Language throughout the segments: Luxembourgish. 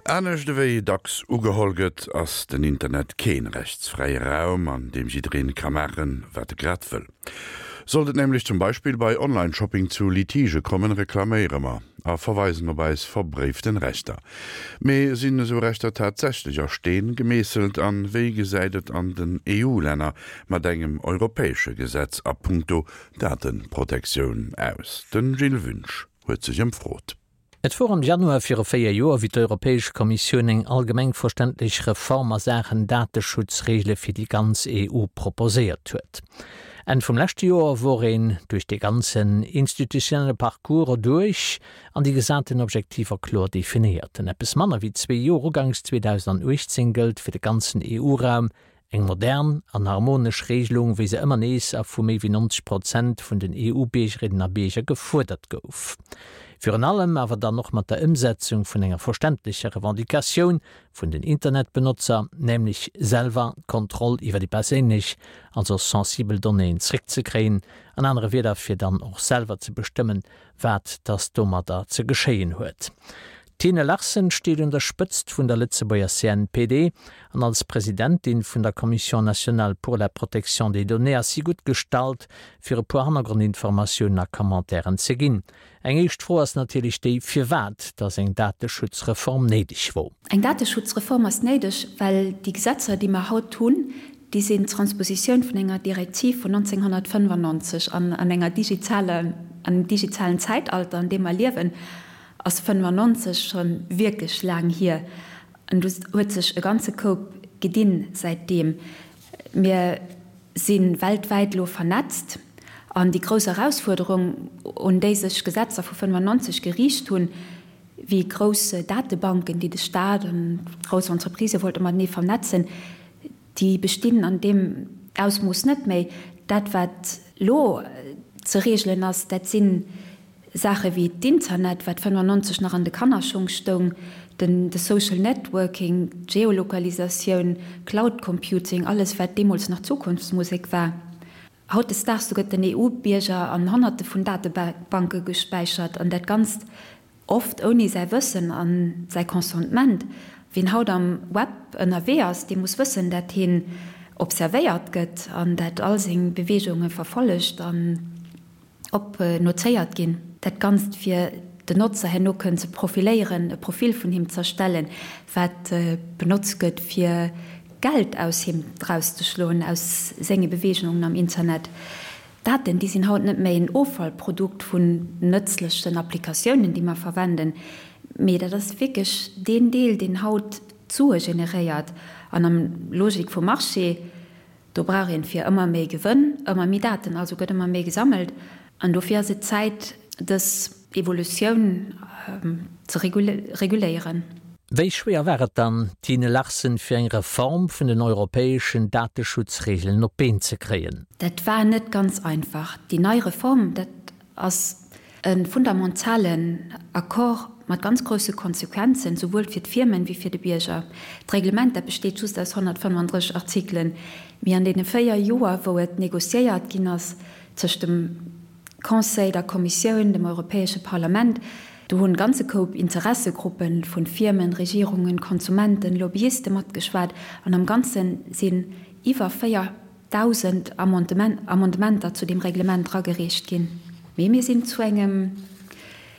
Anescht ewéi dacks ugeholl gëtt, ass den Internet keen rechtsfräie Raum, an deem jiddereen ka maachen, wat e grad wëll. Sollt et nämlech zum Beispill bei Online-Shopping zu Litigë kommen, reklaméiere mer a verweisen op eis verbréiften Rechter. Mee sinn esou Rechter tatsächlech a Steen gemeesselt an wéi gesäit et an den EU-Länner mat engem europäesche Gesetz a punkto Dateprotektioun aus? Den Gilles Wünsch huet sech ëmfrot. Et wor am Januar viru 4 Joer, wéi d'Europäesch Kommissioun eng allgemeng verständlech Reform a Saachen Dateschutzreegele fir déi ganz EU proposéiert huet. Enn vum leschte Joer wor een duerch dee ganzen institutionelle Parcours erduerch an déi gesaten Objektiver kloer definéiert. An eppes manner wéi zwee Joer, uganks 2018, gëllt fir de ganzen EU-Raum Eng modern an harmonesch Regelung, wéi se ëmmer nees a vu méi wéi 90 Prozent vun den EU-Biergerinnen a Bierger gefuerdert gouf. Virun allem awer dann och mat der Ëmsetzung vun enger verständlecher Revendicatioun vun den Internetbenotzer, nämlech selwer d'Kontroll iwwer déi perséinlech, also sensibel Donnéeën zréckzekréien, an anere Wieder fir dann och selwer ze bestëmmen, wat dass domadder ze geschéien huet. D'Tine Larsen steet un der Spëtzt vun der Lëtzebuerger CNPD an als Presidentin vun der Commission nationale pour la protection des données ass si gutt gestallt, fir e puer Hannergrondinformatiounen a Commentairen ze ginn. Eng éischt Fro ass natierlech déi, firwat dass eng Dateschutzreform néideg wor. Eng Dateschutzreform ass néideg, well déi Gesetzer, déi mer haut hunn, déi sinn d'Transpositioun vun enger Direktiv vun 1995 an an enger digitaler, an engem digitalen Zäitalter, an deem mer liewen, ass 95 scho wierklech laang hier an do huet sech e ganze Koup gedinn säitdeem. Mir si weltwäit elo vernetzt an déi grouss Erausfuerderung, un déi sech Gesetzer vu 95 geriicht hunn, wéi grouss Datebanken, déi de Staat an grouss Entreprisë wollte matenee vernetzen, déi bestinn an deem Ausmooss net méi. Dat wat elo ze regelen ass, dat sinn Saache wéi d'Internet, wat 95 nach an de Kannerschong stoung, den de Social Networking, d'Geolokalisatioun, Cloud Computing, alles wat deemools nach Zukunftsmusek war. Hautdesdaags, do gëtt den EU-Bierger an Honnerte vun Datebanke gespäichert an dat Ganzt oft ouni säi Wëssen a säi Consentement. Wien haut am Web ënnerwee ass, dee muss wëssen, dat hien observéiert gëtt an dat all seng Beweegunge verfollegt an op notéiert ginn. Dat Ganzt fir den Notzer herno kënnen ze profiléieren, e Profil vun him z'erstellen, wat benotzt gëtt fir Geld aus him erauszeschloen, aus senge Beweegungen am Internet. Daten, déi sinn haut net méi en Offallprodukt vun nëtzlechen Applikatiounen, déi mer verwenden, mee dat ass wierklech deen Deel, deen haut d'Sue generéiert an am Logik vum Marché. Do brauch een fir ëmmer méi Gewënn ëmmer méi Daten, also gëtt ëmmer méi gesammelt. An dofir ass et Zäit, dës Evolutioun ze reguléieren. Wéi schwéier war et dann, Tine Larsen, fir eng Reform vun den europäeschen Dateschutzregeln op d'Been ze kréien? Dat war net ganz einfach. Déi nei Reform, dat ass E fundamentalen Accord mat ganz grousse Konsequenzen, souwuel fir d'Firmen wéi fir de Bierger. D'Reglement, dat besteet just aus 135 Artikelen, mee an deene 4 Joer, wou et négociéiert ginn ass tëscht dem Conseil, der Kommissioun, dem Europäesche Parlament, do hunn e ganze Koup Interessegruppe vu Firmen, Regierungen, Konsumenten, Lobbyiste matgeschwat an am Ganze sinn iwwer 4 1.000 Amendementer zu deem Reglement eragereecht ginn. Mee mir sinn zu engem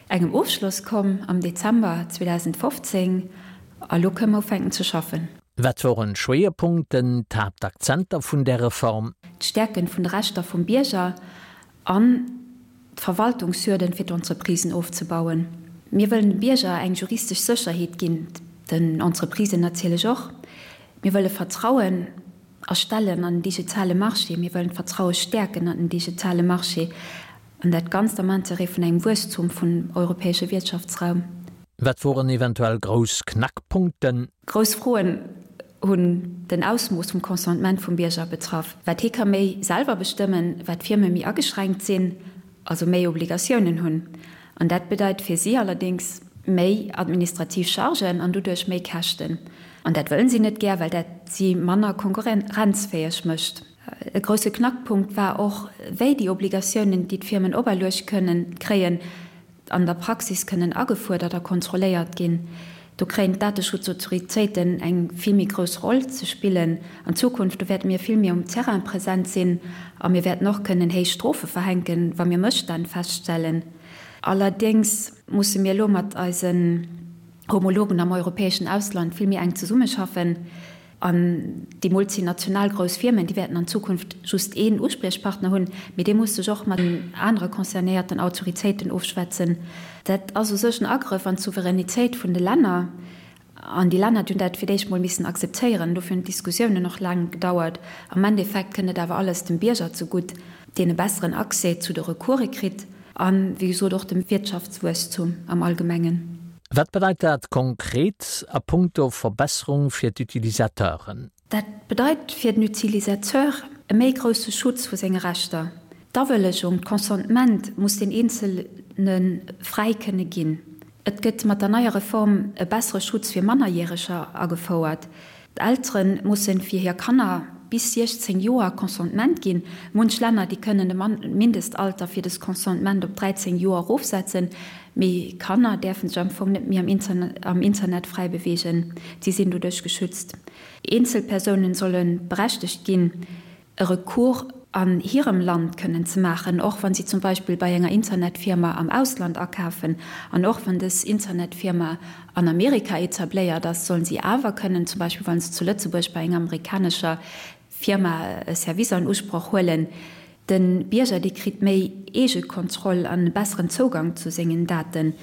engem Ofschloss komm am Dezember 2015 a lo kënnen mer ufänken ze schaffen. Wat woren d'Schwéierpunkten, d'Haaptakzenter vun där Reform? D'Stäerken vun de Rechter vum Bierger an d'Verwaltungshürden fir d'Entreprisen ofzebauen. Mir wëllen dem Bierger eng juristesch Sécherheet ginn, den Entreprisen natierlech och. Mir wëlle Vertrauen erstellen an den digitale Marché. Mir wëllen d'Vertraue stäerken an den digitale Marché, an dat Ganzt am Interêt vun engem Wuesstum vun europäesche Wiertschaftsraum. Wat woren eventuell grouss Knackpunkten? Grouss Froen hunn den Ausmooss vum Consentement vum Bierger betraff. Wat hie ka méi selwer bestëmmen, wat d'Firme méi ageschränkt sinn, also méi Obligatiounen hunn. An dat bedeit fir si allerdéngs méi administrativ Chargen an doduerch méi Käschten. An dat wëllen si net gär, well dat si manner konkurrenzfäeg mécht. E grousse Knackpunkt war och, wéi déi Obligatiounen, déi d'Firmen operluecht kënnen kréien, an der Praxis kënnen agefuerdert a kontrolléiert ginn. Do kréien d'Dateschutzautoritéiten eng vill méi grouss Roll ze spillen an Zukunft. Do wäerte mir vill méi um Terrain present sinn a mir wäerten och kënnen héich Strofe verhänken, wa mir Mësstänn feststellen. Allerdéngs musse mir elo mat eisen Homologen am europäeschen Ausland vill méi enk zesummeschaffen. An déi multinational grouss Firmen, déi wäerten an Zukunft just een Uspriechpartner hunn, mee dee muss sech och mat den anere concernéierten Autoritéiten ofschwätzen. Dat ass u sech en Agrëff an d'Souveränitéit vun de Länner. An déi Länner, déi hunn dat fir d'éischt mol missen akzeptéieren. Dofir hunn d'Diskussiounen och laang gedauert. Am Endeffekt kënnt et awer alles dem Bierger zegutt, deen e besseren Accès zu de Recourse kritt an, wéi gesot, och dem Wirtschaftswuesstum am Allgemengen. Wat bedeit dat konkret a punkto Verbesserung fir d'Utilisateuren? Dat bedeit fir den Utilisateur e méi grousse Schutz vu senge Rechter. D'Awëllegung, d'Consentement muss den Eenzelne fräi kënne ginn. Et gëtt mat der neier Reform e bessere Schutz fir Mannerjäreger agefouert. D'Eltere mussen fir hir Kanner bis 16 Joer Consentement ginn. Munch Länner, déi kënnen de Mindestalter fir des Consentement op 13 Joer erofsetzen, mee Kanner däerfen sech am Fong net méi am Internet fräi beweegen. Si sinn doduerch geschützt. Eenzelpersounen solle berechtegt ginn, e Recours an hirem Land kënnen ze maachen, och wa si zum Beispill bei enger Internetfirma am Ausland akafen an och wann dës Internetfirma an Amerika etabléiert ass, sollen si awer kënnen, zum Beispill wa se zu Lëtzebuerg bei enger amerikanescher Firma e Service an Usproch huelen. De Bierger, dee kritt méi Eegekontroll an e besseren Zougang zu sengen Daten.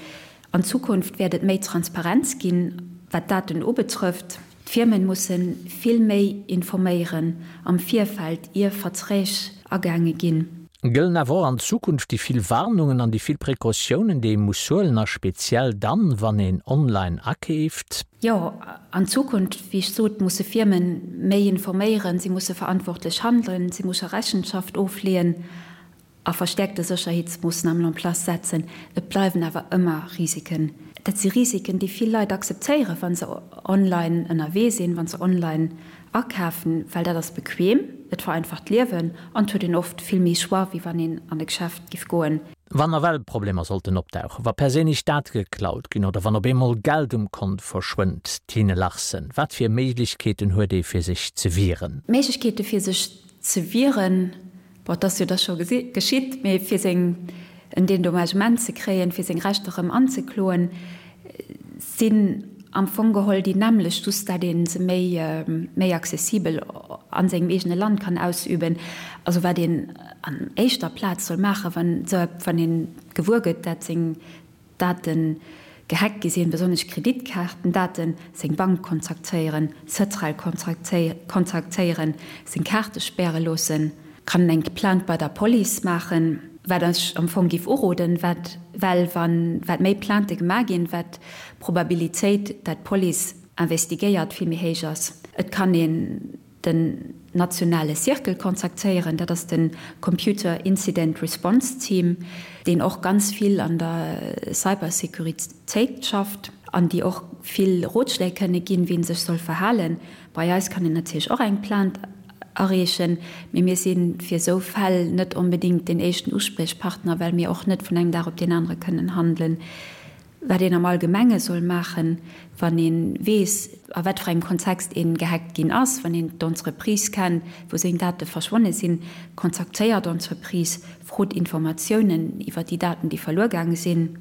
An Zukunft wäert et méi Transparenz ginn, wat d'Daten ubetrëfft. D'Firmen musse vill méi informéieren am Virfeld, ier Verträg agaange ginn. Gëllen awer och an Zukunft déi vill Warnungen an déi vill Precautiounen, déi ee muss huelen, a speziell dann, wann een online akeeft? Jo, an Zukunft, wéi ech sot, musse Firmen méi informéieren, si musse verantwortlech handelen, si musse Rechenschaft ofleeën. A verstäerkte Sécherheetsmoossnamen en place setzen. Et bleiwen awer ëmmer Risiken. Dat si Risiken, déi vill Leit akzeptéieren, wa se online ënnerwee sinn, wa se online akafen, well dat ass bequem, et vereinfacht d'Liewen an et huet een oft vill méi Choix, wéi wann een an e Geschäft giff goen. Wann nawell Problemer sollten opdauchen, wa perséinlech Date geklaut ginn oder wann op eemol Geld um Kont verschwënnt, Tine Larsen, wat fir Méiglechkeeten huet ee fir sech ze wieren? Méiglechkeete fir sech ze wieren, Bon, et ass jo da scho geschitt, mee fir seng en Dédommagement ze kréien, fir seng Rechter erëm anzekloen, sinn am Fong geholl déi nämmlecht, just dat ee se méi, méi accessibel a sengem eegene Land kann ausüben. Also wat een an éischter Plaz soll maachen, wann esou, wann ee gewuer gëtt, dat seng Daten gehackt gi sinn, besonnesch Kreditkaartendaten, seng Bank kontaktéieren, Cetral kontaktéieren, seng Kaarte späre loossen, kann en eng Plainte bei der Police maachen, wat ech am Fong géif uroden, wat well wann wat méi Plaintë gemaach ginn, wat d'Probabilitéit dat d'Police investigéiert vill méi héich ass. Et kann een den nationale Circle kontaktéieren, dat ass de Computer Incident Response Team, deen och ganz vill an der Cybersecuritéit schafft an déi och vill Rotschléi kënne ginn, wéi een sech soll verhalen. Bei eis kann een natierlech och eng Plainte areechen, mee mir si fir esou Fäll net onbedéngt deen éischten Uspriechpartner, well mir och net vun engem Dag op deen anere kënnen handelen. Wat een am Allgemenge soll maachen, wann ee weess, a wat fir engem Kontext ee gehackt ginn ass, wann een d'Entreprise kennt, wou seng Date verschwonne sinn, kontaktéiert d'Entreprise, frot Informatiounen iwwer déi Daten, déi verluer gaange sinn.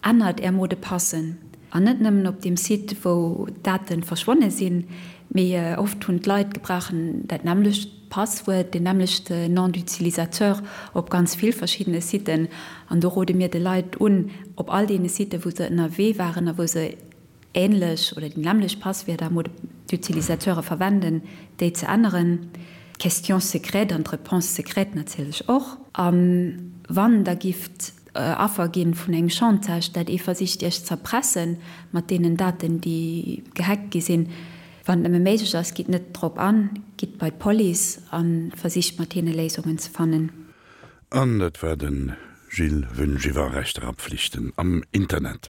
Ännert Är Mot de passen. An net nëmmen op deem Site, wou d'Date verschwonne sinn, mee oft hunn d'Leit gebrauchen dat nämmlecht Passwuert, deen nämmlechte Nom d'utilisateur op ganz vill verschiddene Siten. An do rode mir de Leit un, op all deene Siten, wou se ënnerwee waren a wou se änlech oder déi nämmlecht Passwierder, Mots d'utilisateure verwenden, déi ze änneren. D'Question secrète an d'Réponse secrète natierlech och. A wann Der gifft Affer ginn vun engem Chantage, dat ee versicht Iech z'erpressen mat deenen Daten, déi gehackt gi sinn, Wann et nëmme méiglech ass, gitt net drop an, gitt bei d'Police a versicht mat hinne Léisungen ze fannen. An dat war de Gilles Wünsch iwwer Rechter a Pflichten am Internet.